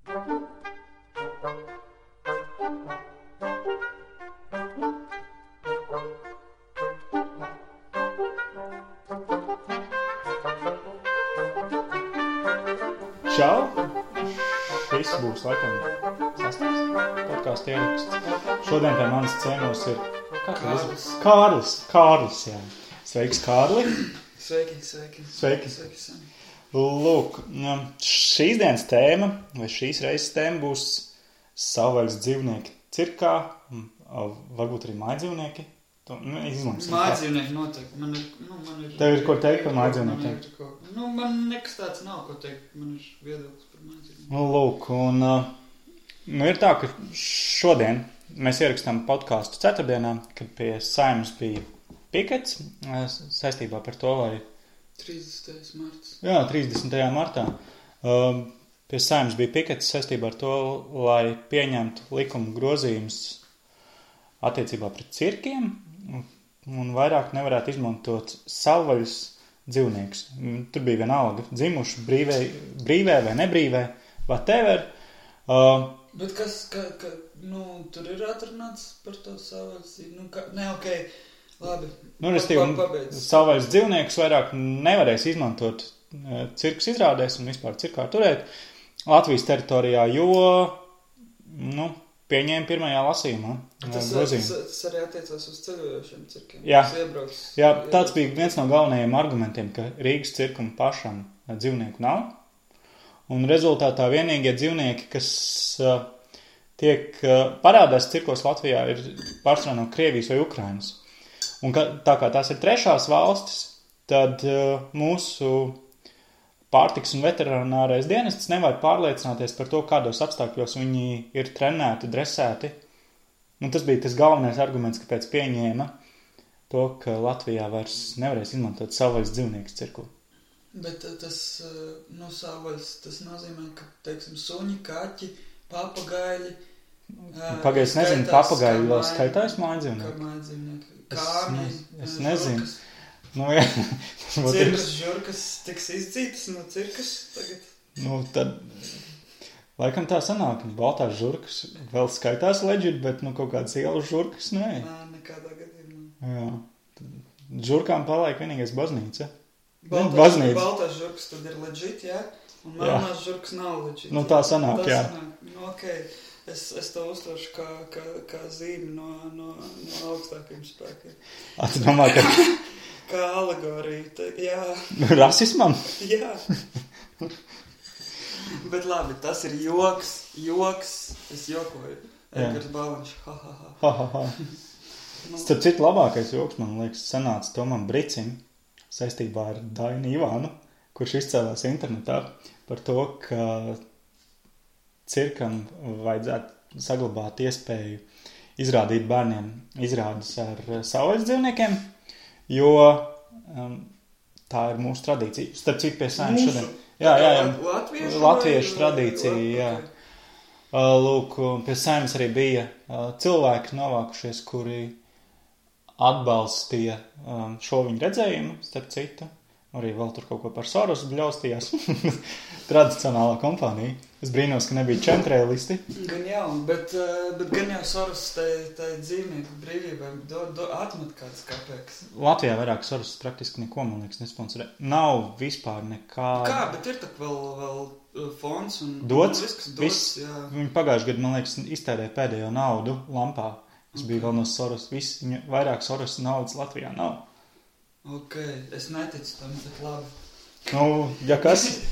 Čau! Šis būs laikam sastais podcastu ieraksts. Šodien pie manas ciemos ir Kārlis, jā. Sveiks, Kārli! Sveiki. Lūk, šīs dienas tēma, vai šīs reizes tēma būs savvaļas dzīvnieki cirkā, varbūt arī mājdzīvnieki. Mājdzīvnieki noteikti. Man ir... Tev ir ko teikt par mājdzīvniekiem? Man nekas tāds nav ko teikt. Man ir viedoklis par mājdzīvniekiem. Lūk, un ir tā, ka šodien mēs ierakstām podcastu ceturtdienā, kad pie Saeimas bija pikets saistībā par to, lai... 30. marts. Jā, 30. martā. Pie Saeimas bija pikets saistībā ar to, lai pieņemtu likuma grozījumus attiecībā pret cirkiem un vairāk nevarētu izmantot savvaļas dzīvniekus. Tur bija vienalga dzimuši brīvē vai nebrīvē, whatever. Bet kas, tur ir atrunāts par to savvaļas dzīvnieku? Labi. Savvaļas dzīvniekus vairāk nevarēs izmantot cirkus izrādēs un vispār cirkā turēt Latvijas teritorijā, jo, pieņēma pirmajā lasījumā. Tas arī attiecās uz ceļojošiem cirkiem. Jā, tāds bija viens no galvenajiem argumentiem, ka Rīgas cirkam pašam dzīvnieku nav. Un rezultātā vienīgie dzīvnieki, kas tiek parādās cirkos Latvijā, ir pārsvarā no Krievijas vai Ukrainas. Un tā kā tās ir trešās valstis, tad mūsu pārtiks un veterinārais dienests nevar pārliecināties par to, kādos apstākļos viņi ir trenēti, dresēti. Un tas bija tas galvenais arguments, kāpēc pieņēma to, ka Latvijā vairs nevarēs izmantot savvaļas dzīvniekus cirku. Bet tas, savvaļas, tas nozīmē, ka, teiksim, suņi, kaķi, papagaļi... Pagaid, es nezinu, papagaļi vēl skaitās mājdzīvnieki. Kārni, es nezinu. Cirkas žurkas tiks izdzītas no cirkas tagad? Tad laikam tā sanāk, baltās žurkas vēl skaitās legit, bet kaut kādas ielas žurkas, nē. Nekādā gadījumā. Jā. Žurkām paliek vienīgais baznīca. Baltās žurkas tad ir legit, jā? Un melnās žurkas nav legit. Tā sanāk, jā. Okay. Es to uztveršu kā zīmi no augstākajiem spēkiem. Tu domā, ka... Kā alegorija, jā. Rasismam? Jā. Bet labi, tas ir joks, es jokoju. Edgars Bāliņš, ha. Starp citu labākais joks, man liekas, sanāca Tomam Bricim saistībā ar Dainu Ivānu, kurš izcēlās internetā par to, ka cirkam vajadzētu saglabāt iespēju izrādīt bērniem izrādes ar savvaļas dzīvniekiem, jo tā ir mūsu tradīcija. Starp citu pie Saeimas šodien. Jā. Latviešu tradīcija, jā. Lūk, pie Saeimas arī bija cilvēki novākušies, kuri atbalstīja šo viņu redzējumu, starp citu. Arī vēl tur kaut ko par Sorosu bļaustījās. Tradicionālā kompānija. Es brīnos, ka nebija čemtrēlisti. Gan jau, bet gan jau Soros tai dzīvnieku brīvībai atmet kādas kapēkas. Latvijā vairāk Soros praktiski neko, man liekas, nesponsorē. Nav vispār nekā... Kā, bet ir tak vēl fonds un... Dots? Viss, jā. Viņi pagājuši gadu, man liekas, iztērē pēdējo naudu lampā. Tas bija vēl no Soros. Vairāk Soros naudas Latvijā nav. Ok, es neticu tam, bet labi. Ja kas...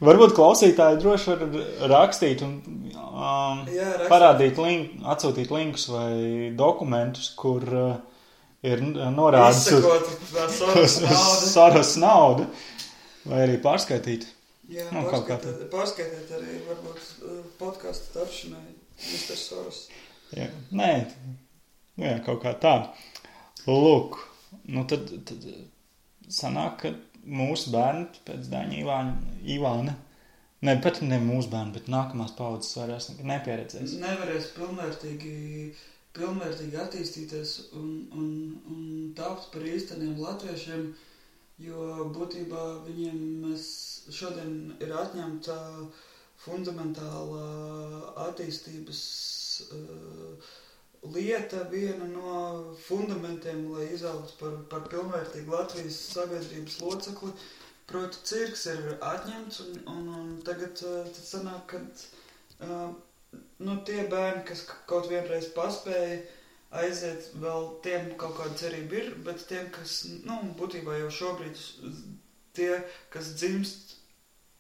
Varbūt klausītāji droši var rakstīt un parādīt atsūtīt linkus vai dokumentus, kur ir norādes uz Soros naudu, vai arī pārskaitīt. Jā, pārskaitīt arī varbūt podcastu tapšanai Mr. Soros. Jā, nē, kaut kā tā. Lūk, tad sanāk, ka mūsu bērni pēc Daņa Ivāna, pat ne mūsu bērni, bet nākamās paudzes vairs nepieredzēs. Nevarēs pilnvērtīgi attīstīties un tapt par īsteniem latviešiem, jo būtībā viņiem šodien ir atņemta fundamentāla attīstības lieta, viena no fundamentiem, lai izaugtu par pilnvērtīgu Latvijas sabiedrības locekli. Proti, cirks ir atņemts, un tagad tad sanāk, ka tie bērni, kas kaut vienreiz paspēja aiziet, vēl tiem kaut kāda cerība ir, bet tiem, kas, būtībā jau šobrīd, tie, kas dzimst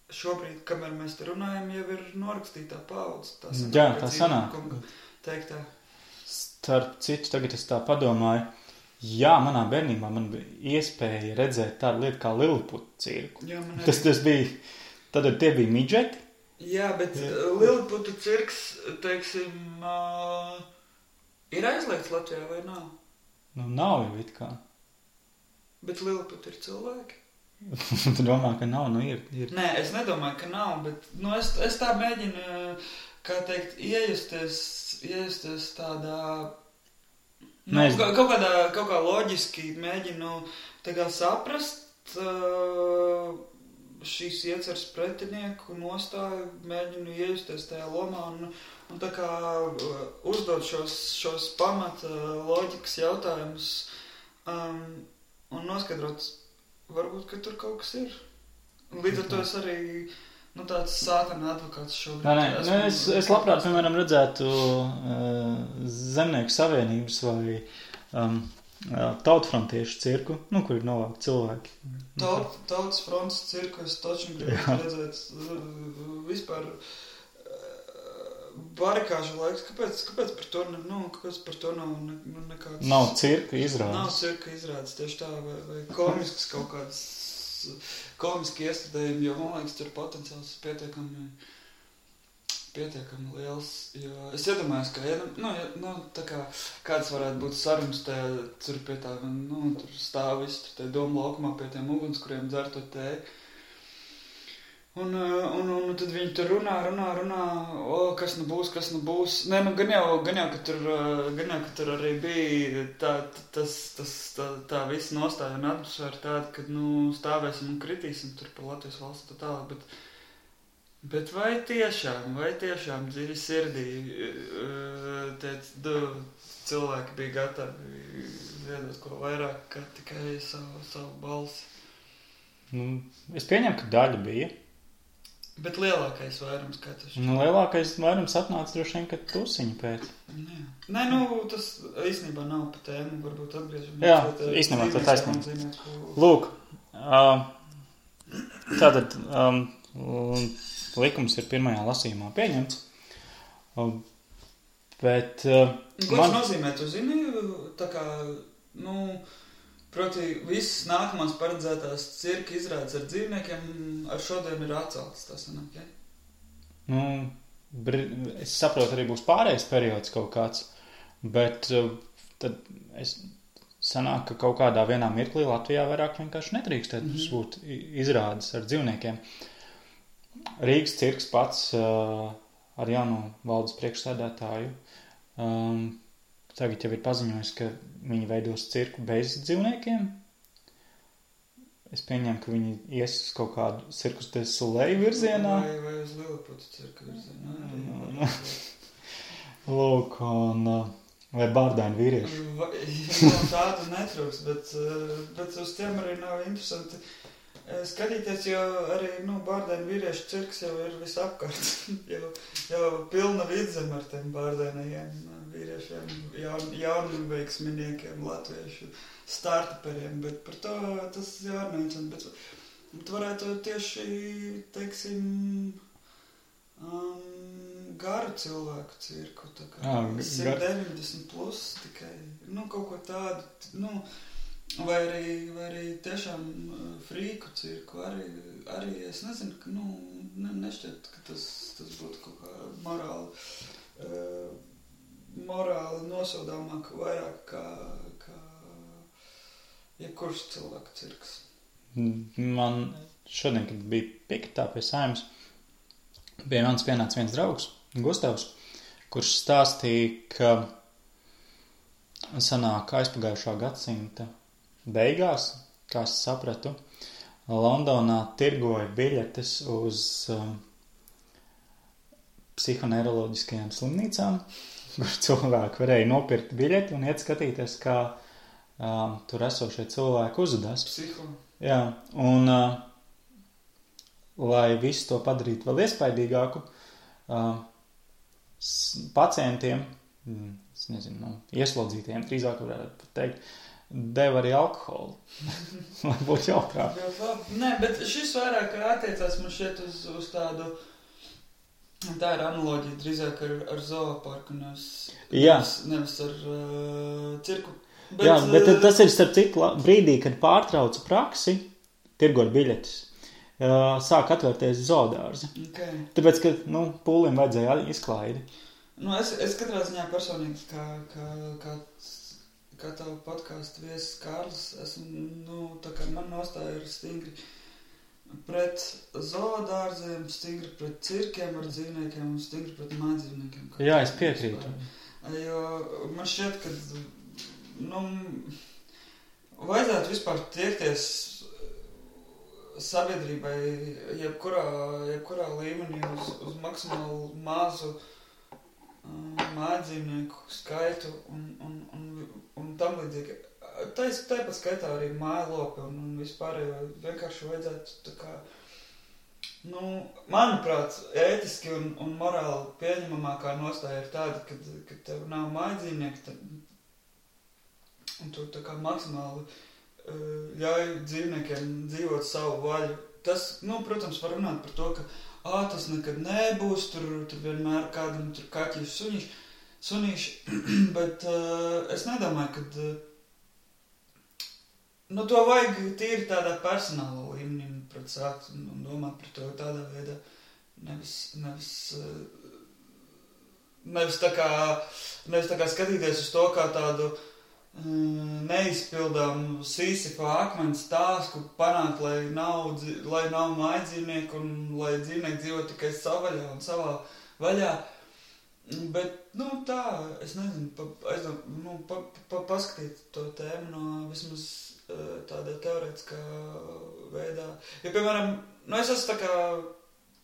šobrīd, kamēr mēs te runājam, jau ir norakstītā paudze. Jā, tā sanāk. Teiktā. Starp citu, tagad es tā padomāju, jā, manā bērnībā man bija iespēja redzēt tādu lietu kā Liliputu cirku. Jā, tas bija, tad tie bija midžeti. Jā, bet Liliputu cirks, teiksim, ir aizliegts Latvijā vai nav? Nav jau it kā. Bet Liliputi ir cilvēki? Tu domā, ka nav? Ir. Nē, es nedomāju, ka nav, bet es tā mēģinu, kā teikt, iejusties tādā, kaut kā loģiski mēģinu tā kā saprast šīs ieceres pretinieku nostāju, mēģinu iejusties tajā lomā un tā kā uzdot šos pamata loģikas jautājumus un noskaidrot, varbūt, ka tur kaut kas ir. Līdz ar to es arī tāds sātana advokāts šobrīd. Es labprāt, piemēram, redzētu Zemnieku savienības vai tautfrontiešu cirku, kur ir novākti cilvēki. Tautas fronts cirku es taču gribu redzēt vispār barikāžu laiks. Kāpēc par to nav nekāds... Nav cirka izrādes. Nav cirka izrādes, tieši tā, vai komisks kaut kāds komiski iestādējumi, jo, man liekas, tur potenciāls pietiekami liels, jo es iedomājos, ka, tā kā kāds varētu būt sarunas tur pie tā, tur stāv visi, tur tie domu laukumā pie tiem ugunskuriem dzer to tēju. Un tad viņi tur runā, kas nu būs. Nē, gan jau, ka tur arī bija tā visa nostāja un atmosfēra tāda, ka, stāvēsim un kritīsim tur par Latvijas valsts tālāk, bet vai tiešām dziļi sirdī tie cilvēki bija gatavi ziedot ko vairāk, kā tikai savu balsi? Es pieņemu, ka daļa bija. Bet lielākais vairums katrs. Lielākais vairums atnāca droši vien, ka tusiņu pēc. Nē, tas īstenībā nav pa tēmu, varbūt atgriežamies. Jā, īstenībā tā taisnība. Lūk, tātad likums ir pirmajā lasījumā pieņemts, bet... Ko tas nozīmē, tu zini, tā kā, proti, visas nākamās paredzētās cirka izrādes ar dzīvniekiem ar šodien ir atceltas, tas sanāk, ja? Es saprotu, arī būs pārējais periods kaut kāds, bet tad sanāk, ka kaut kādā vienā mirklī Latvijā vairāk vienkārši nedrīkstētu būt izrādes ar dzīvniekiem. Rīgas cirks pats ar jauno valdes priekšsēdētāju tagad jau ir paziņojis, ka viņi veidos cirku bez dzīvniekiem. Es pieņemu, ka viņi ies uz kaut kādu Cirkus du Soleil virzienā. Vai uz Liliputu cirka virzienā. Lūk, un vai bārdaini vīrieši. Tādu netrūks, bet uz tiem arī nav interesanti skatīties, jo arī bārdaini vīriešu cirks jau ir visapkārt. jau pilna vidzem ar tiem bārdainajiem vīriešiem, jaunveiksminiekiem, latviešu startuperiem, bet par to tas jārunā. Bet varētu tieši, teiksim, garu cilvēku cirku, tā kā 190 plus tikai, kaut ko tādu, vai arī tiešām frīku cirku, arī es nezinu, ka, nešķiet, ka tas būtu kaut kā morāli nosodāmāk vairāk kā jebkurš cilvēku cirks. Man šodien, kad bija piketā pie Saeimas, pie manis pienāca viens draugs, Gustavs, kurš stāstīja, ka sanāk aizpagājušā gadsimta beigās, kā es sapratu, Londonā tirgoja biļetes uz psihoneiroloģiskajām slimnīcām, kur cilvēki varēja nopirkt biļeti un iet skatīties, kā tur esošie cilvēki uzvedās. Psiho. Jā, un lai visu to padarītu vēl iespaidīgāku, pacientiem, es nezinu, ieslodzītiem, drīzāk varētu teikt, deva arī alkoholu, lai būtu jautrāk. Nē, bet šis vairāk attiecās man šeit uz tādu, tā ir analoģija drīzāk ar zooparku, nevis ar cirku. Jā, bet tas ir starp citu brīdī, kad pārtrauca praksi, tirgot biļetes, sāk atvērties zoodārzi. Okay. Tāpēc, ka, pūlim vajadzēja izklaidi. Es katrā ziņā personīgi, kā tavu podcastu viesis Kārlis, esmu, tā kā man nostāja ir stingri pret zoodārziem, stingri pret cirkiem ar dzīvniekiem un stingri pret mājdzīvniekiem. Jā, es piekrītu. Jo man šķiet, ka, vajadzētu vispār tiekties sabiedrībai jebkurā līmenī uz maksimāli mazu mājdzīvnieku skaitu un tam līdzīgi. Tāpat skaitā arī mājlopi un vispārējo vienkārši vajadzētu tā kā, manuprāt, ētiski un morāli pieņemamākā nostāja ir tāda, kad tev nav mājdzīvnieki, un tu tā kā maksimāli ļauj dzīvniekiem dzīvot savu vaļu. Tas, protams, var runāt par to, ka tas nekad nebūs, tur vienmēr kādam tur kaķis sunīši, bet es nedomāju, ka to vajag tīri tādā personāla līmenī pret sākt un domāt par to tādā veidā, nevis tā kā skatīties uz to kā tādu neizpildām Sīsifā akmens tāsku panākt, lai nav mājdzīvnieku un lai dzīvnieki dzīvo tikai savvaļā un savā vaļā. Bet, tā, es nezinu, paskatīt to tēmu no vismaz tādā teorētiskā veidā. Ja, piemēram, es esmu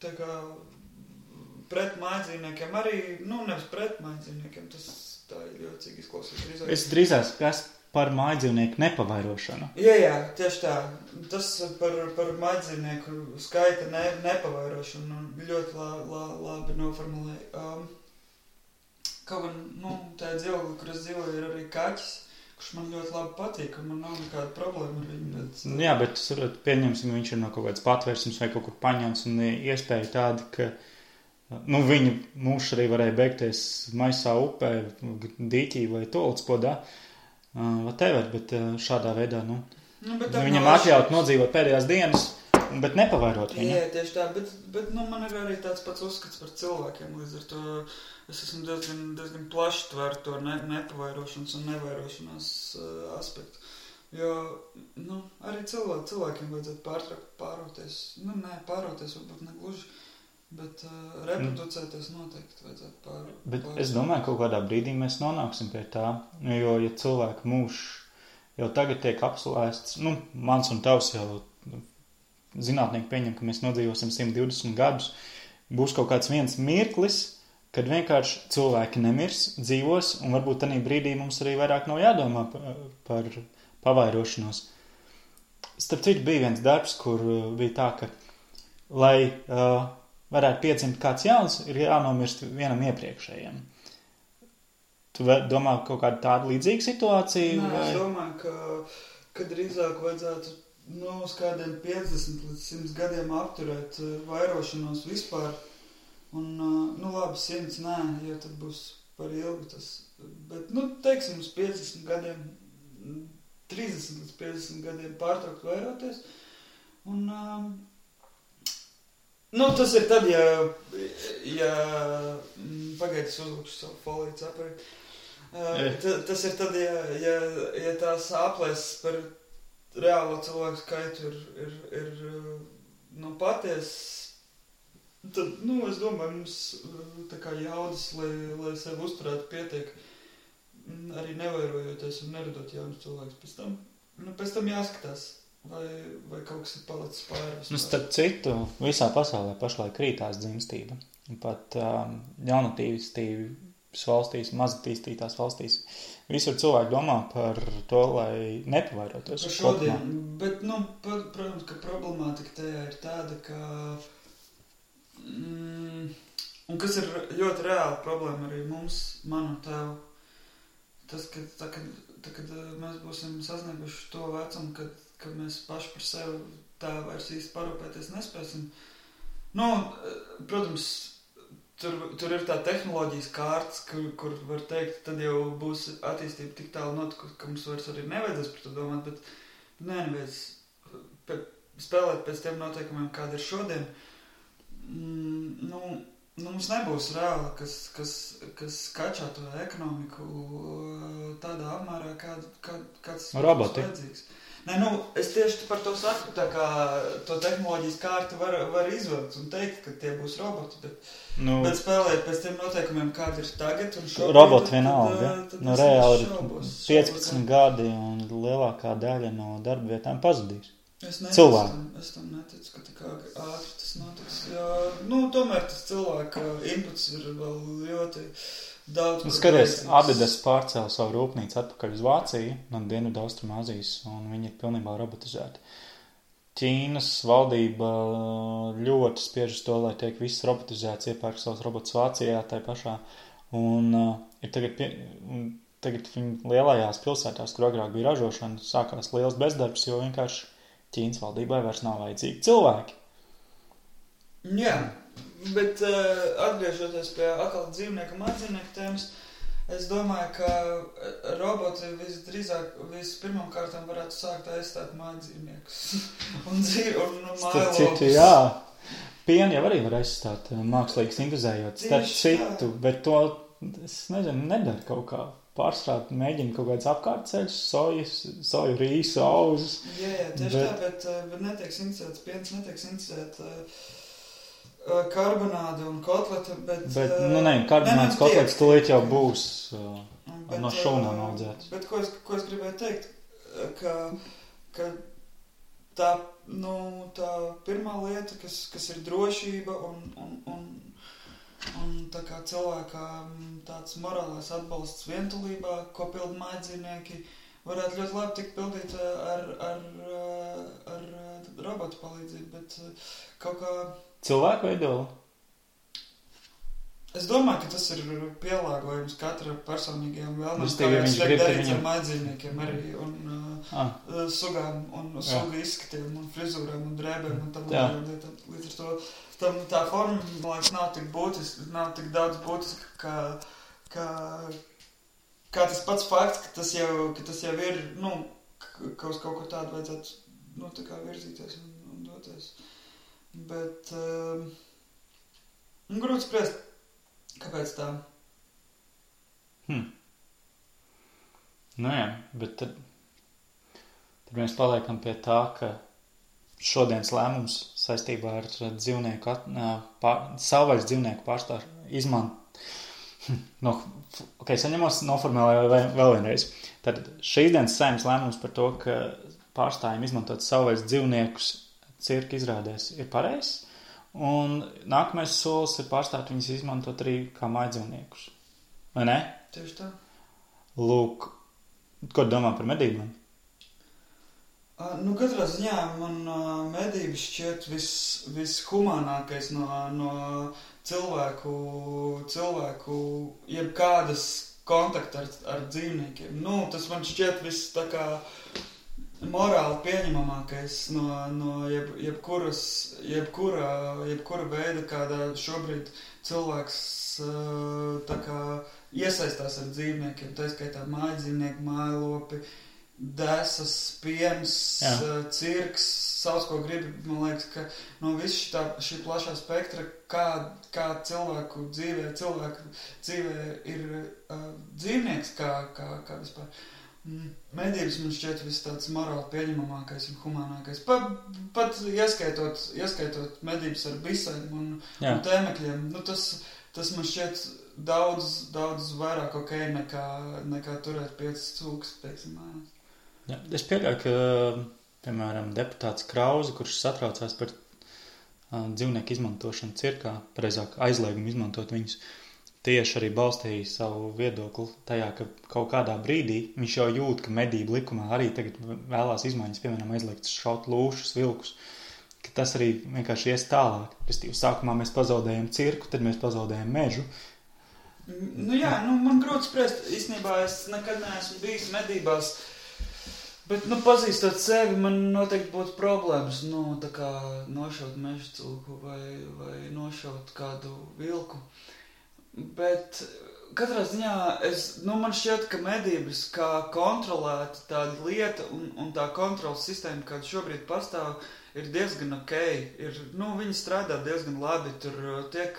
tā kā pret mājdzīvniekiem arī, nevis pret mājdzīvniekiem, tas tā ir ļoti izklausīt. Es drīzāk esmu par mājdzīvnieku nepavairošanu. Jā, tieši tā. Tas par mājdzīvnieku skaita nepavairošanu ļoti labi noformulēja. Kaut gan, tā dzīvokli, kur es dzīvoju, ir arī kaķis, kurš man ļoti labi patīk, un man nav nekāda problēma ar viņu. Bet... Jā, bet pieņemsim, viņš ir no kaut kāds patvērsums vai kaut kur paņemts, un iespēja tāda, ka viņa mūžs arī varēja beigties maisā upē, dīķī vai tolcpodā, whatever, bet šādā veidā, viņam atļaut nodzīvot pēdējās dienas, bet nepavairot viņu. Jā, tieši tā, bet man ir arī tāds pats uzskats par cilvēkiem, līdz ar to es esmu diezgan plaši tver to nepavairošanas un nevairošanās aspektu. Jo, arī cilvēkiem vajadzētu pāroties, pāroties varbūt negluži, bet reproducēties noteikti vajadzētu pāroties. Bet es domāju, kaut kādā brīdī mēs nonāksim pie tā, jo, ja cilvēka mūžs jau tagad tiek apslēsts, mans un tavs jau zinātnieki pieņem, ka mēs nodzīvosim 120 gadus, būs kaut kāds viens mirklis, kad vienkārši cilvēki nemirs, dzīvos, un varbūt tanī brīdī mums arī vairāk nav jādomā par pavairošanos. Starp citu bija viens darbs, kur bija tā, ka, lai varētu piedzimt kāds jauns, ir jānomirst vienam iepriekšējiem. Tu domā kaut kādu tādu līdzīgu situāciju? Nē, es domāju, ka drīzāk vajadzētu uz kādiem 50 līdz 100 gadiem apturēt vairošanos vispār. Un, labi, 100 nē, jo tad būs par ilgu tas. Bet, teiksim, uz 50 gadiem, 30 līdz 50 gadiem pārtraukt vairoties. Un, tas ir tad, ja pagaidas uzlūkšu savu foliju cepari. Tas ir tad, ja tās aplēses par reālo cilvēku skaitu ir paties, tad, es domāju, mums tā kā jaudas, lai sevi uzturētu pietiek, arī nevairojoties un neradot jaunus cilvēkus. Pēc tam jāskatās, vai kaut kas ir palicis pāri. Starp citu, visā pasaulē pašlaik krītās dzimstība. pat jaunatīstības valstīs, mazatīstītās valstīs. Visur cilvēki domā par to, lai nepavairotos. Par šodien, bet, protams, ka problemātika tajā ir tāda, ka, un kas ir ļoti reāla problēma arī mums, manu tevu, tas, ka kad mēs būsim sasnieguši to vecumu, kad mēs paši par sevi tā vairs īsti parūpēties nespēsim. Protams, tur ir tā tehnoloģijas kārtas, kur var teikt, tad jau būs attīstība tik tālu notikusi, ka mums vairs arī nevajadzēs par to domāt, bet neviens spēlēt pēc tiem noteikumiem, kāda ir šodien. Mums nebūs reāli, kas kačā to ekonomiku tādā apmērā, kāds roboti. Vajadzīgs. Es tieši par to saku, tā kā to tehnoloģijas kārtu var izvilkt un teikt, ka tie būs roboti, bet spēlēt pēc tiem noteikumiem, kādi ir tagad un šobrīd. Roboti vienalga, reāli ir 15 gadi un lielākā daļa no darba vietām pazudīs. Es tam neticu, ka tik ātri tas notiks, jo, tomēr tas cilvēka inputs ir vēl ļoti daudz. Skaties, Adidas pārcēla savu rūpnīcu atpakaļ uz Vāciju no Dienvidu Austrumāzijas, un viņi ir pilnībā robotizēti. Ķīnas valdība ļoti spiež uz to, lai tiek viss robotizēts, iepērk savus robotus Vācijā, tai pašā, un ir tagad viņi lielajās pilsētās, kur agrāk bija ražošana, sākās liels bezdarbs, jo vienkārši Ķīnas valdībai vairs nav vajadzīgi cilvēki. Jā, bet atgriežoties pie atkal dzīvnieku un mājdzīvnieku tēmas, es domāju, ka roboti visdrīzāk vispirmām kārtām varētu sākt aizstāt mājdzīvniekus un mājlopus. Citu, jā. Pienu jau arī var aizstāt mākslīgi sintezējot starp citu, bet to, es nezinu, nedara kaut kā. Pārstrāt, mēģina kaut kāds apkārtceļus, soju, rīsu, auzus. Jā, tieši tā, bet netiek sintezēts piens, netiek sintezēt karbonādi un kotleta, bet karbonāds kotlets tūlīt jau būs no šūnām audzēts. Bet ko es gribēju teikt, ka tā pirmā lieta, kas ir drošība un tā kā cilvēkam tāds morālais atbalsts vientulībā, ko pilda mājdzīvnieki, varētu ļoti labi tikt pildīt ar robotu palīdzību, bet kaut kā... Cilvēku veidoli? Es domāju, ka tas ir pielāgojums katra personīgajām vēlmēm, kā viņš grib darīts ar mājdzīvniekiem arī, un sugām, un sugu izskatiem, un frizūrām, un drēbēm, un tam lietām. Līdz ar to tā forma, man liekas, nav tik daudz būtiska, kā tas pats fakts, ka tas jau ir, ka uz kaut ko tādu vajadzētu, tā kā virzīties un doties. Bet, grūti spriest, kāpēc tā? Jā, bet tad mēs paliekam pie tā, ka šodienas lēmums saistībā ar dzīvnieku, savvaļas dzīvnieku pārstāvu saņemos noformulēju vēl vienreiz. Tad šīs dienas saimnes lēmums par to, ka pārstājiem izmantot savvaļas dzīvniekus cirka izrādēs ir pareizs, un nākamais solis ir pārstāt viņus izmantot arī kā mājdzīvniekus. Vai ne? Tieši tā. Lūk, ko domā par medībām? Katrā ziņā man medības šķiet vishumānākais no cilvēku jebkādas kontakta ar dzīvniekiem. Tas man šķiet viss tā kā morāli pieņemamākais no jebkura veida, kādā šobrīd cilvēks tā kā iesaistās ar dzīvniekiem, tā skaitā mājdzīvnieki, mājlopi, desas, piens, cirks, sauc, ko gribi. Man liekas, ka no visu šī plašā spektra, kā cilvēku dzīvē ir dzīvnieks, kā vispār. Medības man šķiet viss tāds morāli pieņemamākais un humānākais. Pat ieskaitot medības ar bisēm un tēmekļiem. Tas man šķiet daudz vairāk nekā turēt 5 cūkas, teiksim, mājās. Es pieļauju, ka, piemēram, deputāts Krauze, kurš satraucās par dzīvnieku izmantošanu cirkā, pareizāk aizliegumu izmantot viņus, tieši arī balstīja savu viedokli tajā, ka kaut kādā brīdī viņš jau jūt, ka medību likumā arī tagad vēlās izmaiņas, piemēram, aizliegts šaut lūšus, vilkus, ka tas arī vienkārši ies tālāk. Restīvi, sākumā mēs pazaudējam cirku, tad mēs pazaudējam mežu. Nu jā, man grūti spriest. Īstenībā es nekad neesmu bijis medībās, bet, pazīstot sevi, man noteikti būtu problēmas, tā kā nošaut meža cilku vai nošaut kādu vilku. Bet katrā ziņā man šķiet, ka medības kā kontrolēta tāda lieta un tā kontrolas sistēma, kāda šobrīd pastāv, ir diezgan ok. Viņi strādā diezgan labi, tur tiek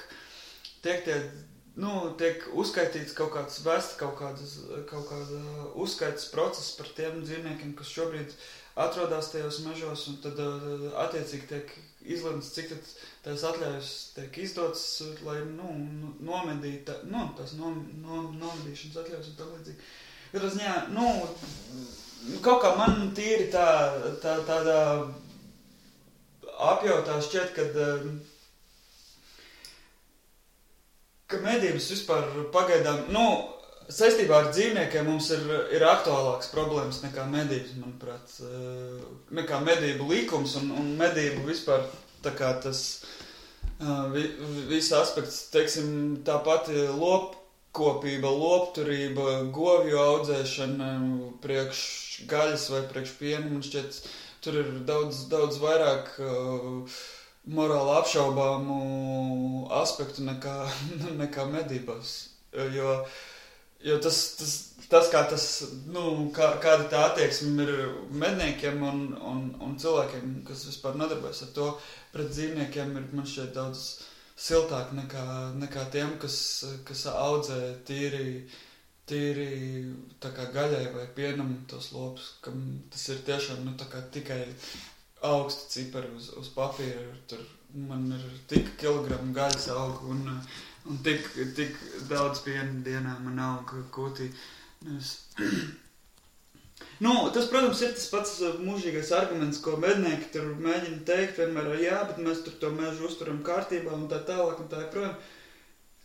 uzskaitīts kaut kāds kaut kāda uzskaitas process par tiem dzīvniekiem, kas šobrīd atrodas tajos mežos, un tad attiecīgi tiek izlemts, cik tad tās atļaujas tiek izdotas, lai nomedītu, tās nomedīšanas atļaujas un tam līdzīgi. Katrā ziņā, kaut kā man tīri tādā apjautā šķiet, ka medības vispār pagaidām, saistībā ar dzīvniekiem mums ir aktuālāks problēmas nekā medības, manuprāt, nekā medību likums un medību vispār tā kā tas viss aspekts, teiksim, tā pati lopkopība, lopturība, govju audzēšana priekš gaļas vai priekš piena, man šķiet, tur ir daudz vairāk morāli apšaubāmu aspektu nekā medībās, jo tas kā tas, kāda tā attieksme ir medniekiem un cilvēkiem, kas vispār nodarbojas ar to, pret dzīvniekiem ir, man šķiet, daudz siltāk nekā tiem, kas audzē tīri tā kā gaļai vai pienam tos lopus, kam tas ir tiešām, tā kā tikai augsti cipari uz papīra, tur man ir tik kilogramu gaļas aug un tik daudz piena dienā man aug kūtī. Tas, protams, ir tas pats mūžīgais arguments, ko mednieki tur mēģina teikt vienmēr, jā, bet mēs tur to mežu uzturam kārtībā un tā tālāk un tā joprojām.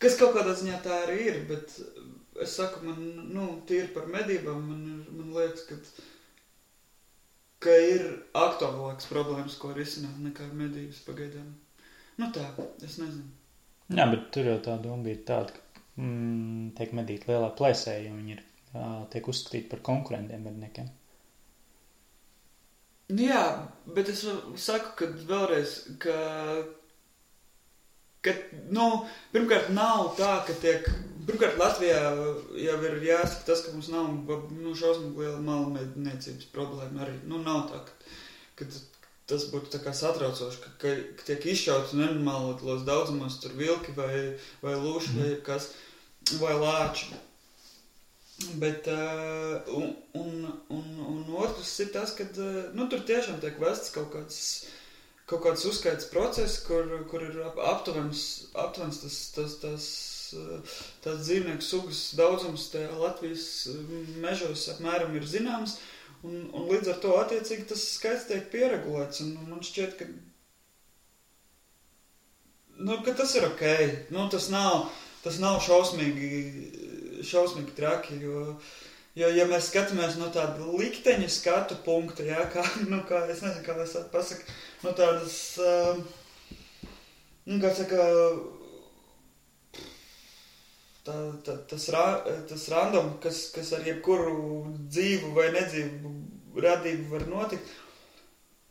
Kas kaut kādā ziņā tā arī ir, bet es saku, man, tīri par medībām, man liekas, ka ir aktuālākas problēmas, ko risināt nekā medības pagaidām. Tā, es nezinu. Jā, bet tur jau tā doma bija tāda, ka tiek medīti lielā plēsē, jo viņi tiek uzskatīti par konkurentiem medniekiem. Jā, bet es saku, ka vēlreiz, ka pirmkārt nav tā, ka pirmkārt Latvijā jau ir jāsaka tas, ka mums nav šausmīgi liela malmedniecības problēma arī. Nav tā, ka tas būtu tā kā satraucoši, ka tiek izšauts nenormālos daudzumos tur vilki vai lūši vai kas, vai lāči. Bet, un otrs ir tas, ka, tur tiešām tiek vests kaut kāds uzskaits process, kur ir aptuvens tās dzīvnieku sugas daudzums tajā Latvijas mežos apmēram ir zināms, un līdz ar to attiecīgi tas skaits tiek pieregulēts, un man šķiet, ka tas ir ok. Tas nav šausmīgi traki, jo ja mēs skatāmies no tāda likteņa skatu punkta, jā, kā, es nezinu, kā es pasaku, no tādas, kā saka, tas random, kas ar jebkuru dzīvu vai nedzīvu radību var notikt,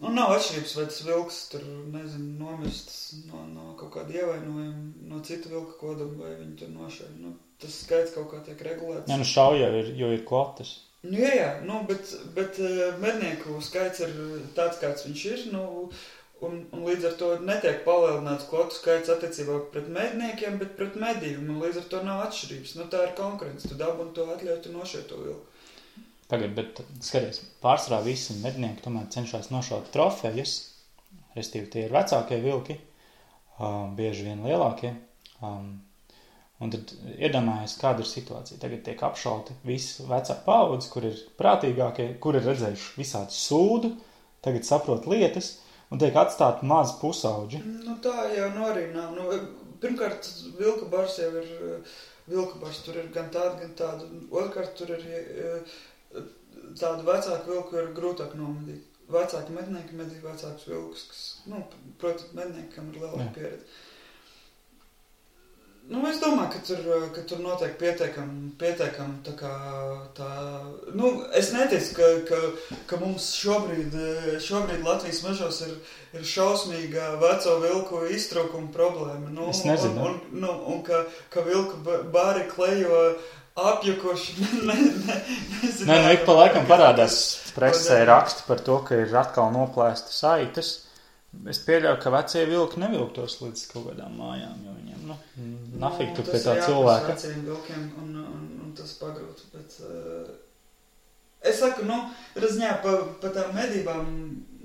nav atšķirības, vai tas vilks tur, nezinu, nomirsts no kaut kāda ievainojuma, no cita vilka koduma, vai viņi tur nošauj. Tas skaits kaut kā tiek regulēts. Jā, šauja, jo ir kvotas. Jā, bet mednieku skaits ir tāds, kāds viņš ir, un līdz ar to netiek palielināts kvotu skaits attiecībā pret medniekiem, bet pret medījumu, un līdz ar to nav atšķirības. Tā ir konkurence, tu dabuni to atļauj, tu nošauj to vilku. Tagad, bet skaties, pārsvarā visi mednieki tomēr cenšas nošaut trofejas, restīvi tie ir vecākie vilki, bieži vien lielākie, un tad iedomājies, kāda ir situācija. Tagad tiek apšauti visi vecā paudze, kur ir prātīgākie, kur ir redzējuši visādu sūdu, tagad saprot lietas, un tiek atstāti mazi pusauģi. Nu tā jau arī nav. Nu, pirmkārt, vilku bars jau ir, vilku bars tur ir gan tādu. Otrkārt, tur ir tādu vecāku vilku ir grūtāk nomedīt. Vecāki mednieki medī vecākus vilkus, kas, nu, protams, medniekam ir lielāka pieredze. Nu, es domāju, ka tur notiek pietiekam tā kā tā... Nu, es neteicu, ka mums šobrīd Latvijas mežos ir šausmīga veco vilku iztrūkuma problēma. Nu, es nezinu. Un ka vilku bāri klejo apjukuši. Nē, nu, ik pa laikam parādās presē raksti par to, ka ir atkal noplēsta saites. Es pieļauju, ka vecie vilki nevilktos līdz kaut kādām mājām, jo viņiem, nu, nafik tu pie tā cilvēka. Tas ir veciem vilkiem un tas pagrūt, bet es saku, nu, razņā pa tām medībām,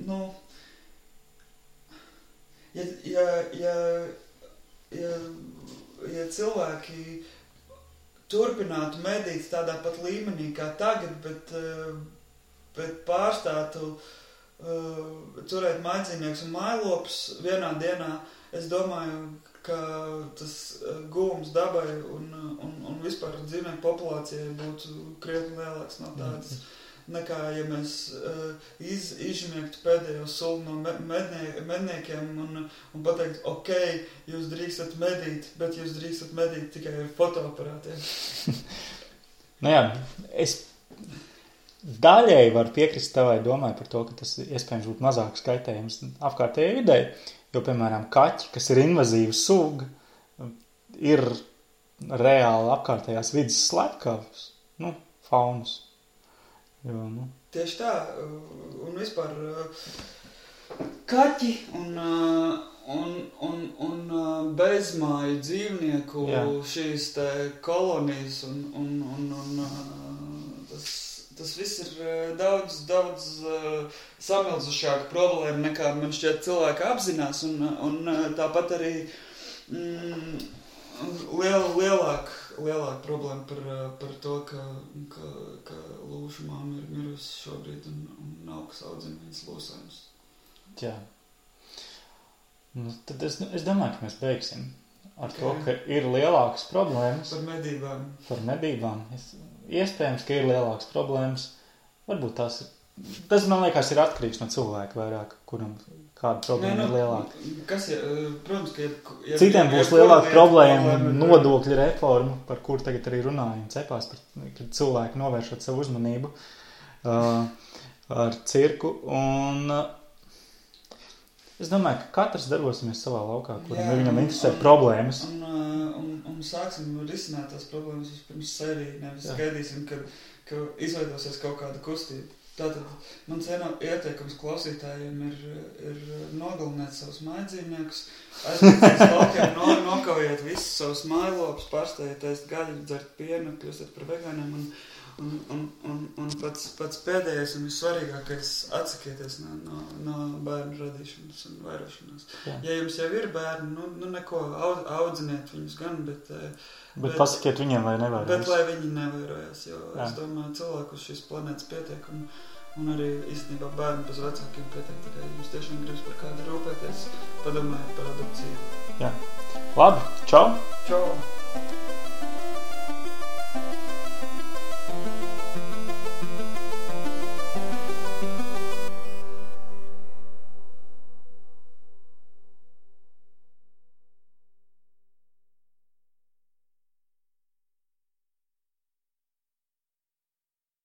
nu, ja cilvēki turpinātu medīt tādā pat līmenī kā tagad, bet pārstātu turēt maidzīnieks un mājlopus vienā dienā, es domāju, ka tas gūms dabai un vispār dzīvnieku populācijai būtu krietni lielāks no tādas, nekā, ja mēs izžmiegtu pēdējo sulu no medniekiem un pateikt, ok, jūs drīkstat medīt, bet jūs drīkstat medīt tikai ar fotoaparātiem. Nu jā, es daļēji var piekrist tavai domai par to, ka tas iespējams būtu mazāk skaitējums apkārtējai videi, jo, piemēram, kaķi, kas ir invazīva suga, ir reāli apkārtējās vidas slepkavas, nu, faunas. Jo, nu. Tieši tā, un vispār kaķi un bezmāju dzīvnieku šīs te kolonijas un tas viss ir daudz samilzušāka problēma nekā man šķiet cilvēki apzinās un tāpat arī lielāka problēma par to, ka lūšu māma ir mirusi šobrīd un nav kas audzina viņas lūsājums. Jā. Nu, tad es domāju, ka mēs beigsim ar to, ka ir lielākas problēmas. Par medībām. Iespējams, ka ir lielākas problēmas. Varbūt tas, man liekas, ir atkarīgs no cilvēka vairāk, kuram kāda problēma ir lielāka. Protams, ka... Citiem būs lielāka problēma nodokļu reforma, par kur tagad arī runājam cepās, kad cilvēki novēršot savu uzmanību ar cirku. Un es domāju, ka katrs darbosimies savā laukā, kuram viņam interesē problēmas. Un sāksim risināt tās problēmas pirms sevi, nevis gaidīsim, ka izveidosies kaut kāda kustība. Tātad mans ieteikums klausītājiem ir nogalināt savus maidzīvniekus, aizpēc laukiem, nokaujiet visus savus mājlopus, pārstājiet ēst gaļu, dzert pienu, kļūstat par vegāniem un pats pēdējais un vissvarīgākais atsakieties no bērnu radīšanas un vairošanās. Jā. Ja jums jau ir bērni, nu neko, audziniet viņus gan, bet pasakiet viņiem, lai nevairojas. Bet lai viņi nevairojas, jo es domāju, cilvēku uz šīs planētas pietiek un arī īstenībā bērni bez vecākiem pietiek, tikai jums tiešām gribas par kādu rūpēties, padomājiet par adopciju. Jā. Labi, čau! Čau!